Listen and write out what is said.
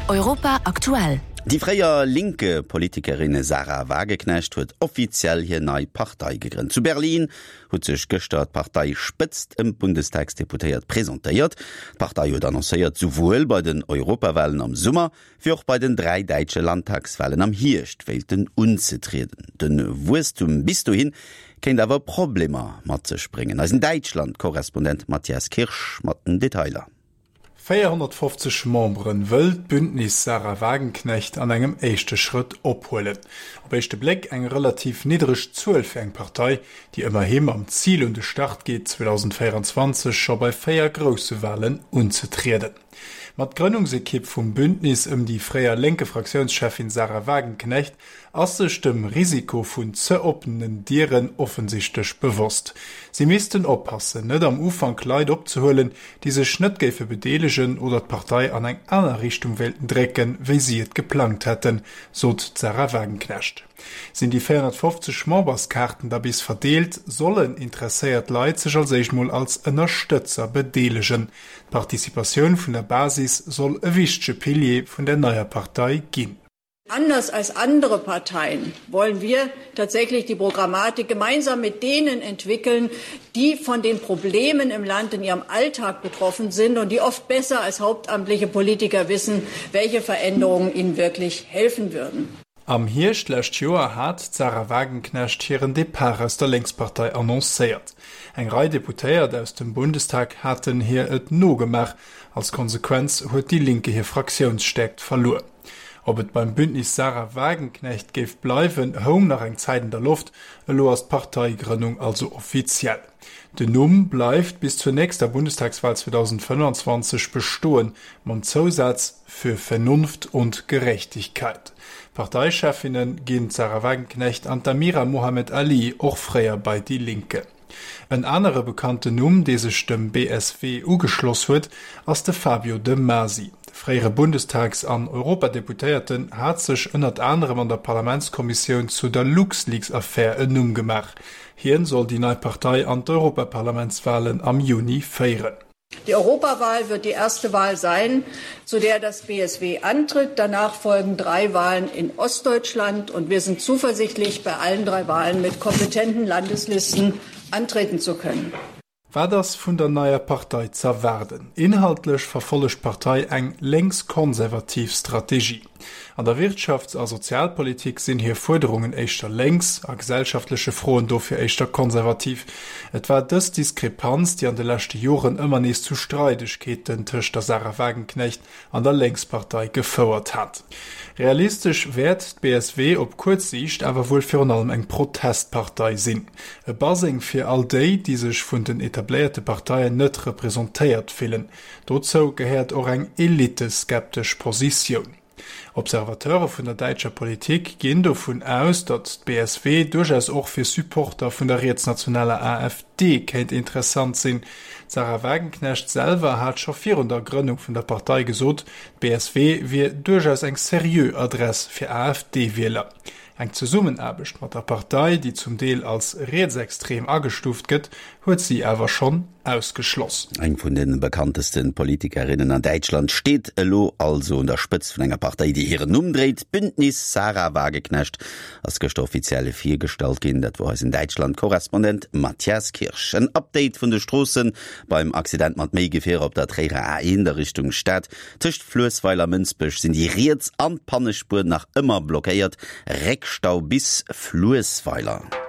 Europa aktuell. Déi fréier Linke-Politikerin Sahra Wagenknecht huet offiziell hir nei Partei gegrënnt. Zu Berlin huet sech gëschter d'Parteispëtzt ëm d'Bundestagsdeputéiert presentéiert. D'Partei huet annoncéiert, souwuel bei den Europawalen am Summer, wéi och bei den 3 däitsche Landtagswalen am Hierscht wéilten unzetrieden. De Wuesstum bis dohin kéint awer Problemer mat sech bréngen. Eisen Däitschland-Korrespondent Matthias Kirsch mat den Detailer. 450 Memberen wëll d'Bündnis Sahra Wagenknecht an engem éischte Schrëtt ophuelen. Op éischte Bléck eng relativ niddereg Zuel fir eng Partei, déi ëmmerhi mam Zil un de Start geet, 2024 scho bei 4 grousse Walen unzetrieden. Ma d'Grënnungsekipp vum Bündnis ëm déi fréier Lénke-Fraktiounscheffin Sahra Wagenknecht ass sech dem Risiko vun ze oppenen Dieren offensichtlech bewosst. Si missten oppassen, net am Ufank Leit opzehuelen, déi sech net géife bedeelegen oder d'Partei an eng aner Richtung wéilten drécken, wéi si et geplangt hätten, sot d'Sahra Wagenknecht. Sinn déi 450 Memberskaarten da bis verdeelt, sollen interesséiert Leit sech als éischt mol als Ënnerstëtzer bedeelegen. D'Participatioun vun der Basis soll e wichtege Pilier vun der neier Partei ginn. Anders als andere Parteien wollen wir tatsächlich die Programmatik gemeinsam mit denen entwickeln, die von den Problemen im Land in ihrem Alltag betroffen sind und die oft besser als hauptamtliche Politiker wissen, welche Veränderungen ihnen wirklich helfen würden. Am Hierscht d'lescht Joer hat d'Sahra Wagenknecht hiren Depart aus der Lénkspartei annoncéiert. Eng Rei Deputéiert aus dem Bundestag haten hir et nogemaach. Als Konsequenz huet déi Linke hir Fraktiounsstäerkt verluer. Ob et beim Bündnis Sahra Wagenknecht géif bleiwen, houng nach eng Zäit an der Loft. Elo ass d'Parteigrënnung also offiziell. Den Numm bleift bis zur nächster Bundestagswahl 2025 bestoen, mam Zousaz Für Vernunft und Gerechtigkeit. Parteichefinne ginn d'Sahra Wagenknecht an d'Amira Mohamed Ali, och fréier bei Die Linke. En anere bekannten Numm, dee sech dem BSW ugeschloss huet, ass de Fabio De Masi. De fréiere Bundestags an Europadeputéierten hat sech ënnert anerem an der Parlamentskommissioun zu der LuxLeaks-Affär en Numm gemaach. Hien soll déi nei Partei an d'Europaparlamentswalen am Juni féieren. Die Europawahl wird die erste Wahl sein, zu der das BSW antritt. Danach folgen drei Wahlen in Ostdeutschland und wir sind zuversichtlich, bei allen drei Wahlen mit kompetenten Landeslisten antreten zu können. Wat ass vun der neier Partei z'erwaarden? Inhaltlech verfollegt d'Partei eng lénks-konservativ Strategie. An der Wirtschafts a Sozialpolitik sinn hir Fuerderungen éischter lénks, a gesellschaftleche Froen dofir éischter konservativ. Et war dës Diskrepanz, déi an de leschte Joren ëmmer nees zu Streidegkeeten tëscht der Sahra Wagenknecht an der Lénkspartei gefouert hat. Realistesch wäert d'BSW op kuerz Siicht awer wuel virun allem eng Protestpartei sinn. E Baseng fir all déi, déi sech vun den etabléierte Parteien net representéiert fillen. Dozou gehéiert och eng eliteskeptesch Positioun. Observateure vun der däitscher Politik ginn dovun aus, datt d'BSW duerchaus och fir Supporter vun der rietsnationaler AfD kéint interessant sinn. D'Sahra Wagenknecht selwer hat scho virun der Grënnung vun der Partei gesot, d'BSW wier duerchaus eng seriö Adress fir AfD-Wieler. Eng Zesummenaarbecht mat der Partei, déi zum Deel als rietsextrem agestuuft gëtt, huet si awer schonn ausgeschloss. Eng vun de bekannteste Politikerinnen an Däitschland steet elo also un der Spëtzt vun enger Partei, déi hiren Numm dréit. D'Bündnis Sahra Wagenknecht ass gëschter offiziell virgestallt ginn. Dat wor eisen Däitschland-Korrespondent Matthias Kirsch. En Update vun de Stroossen beim Accident mat méi Gefierer op der Tréierer A1 a Richtung Stad. Tëscht Fluessweiler a Mënsbech sinn déi riets an d'Pannespuer nach ëmmer blockéiert, Réckstau bis Fluessweiler.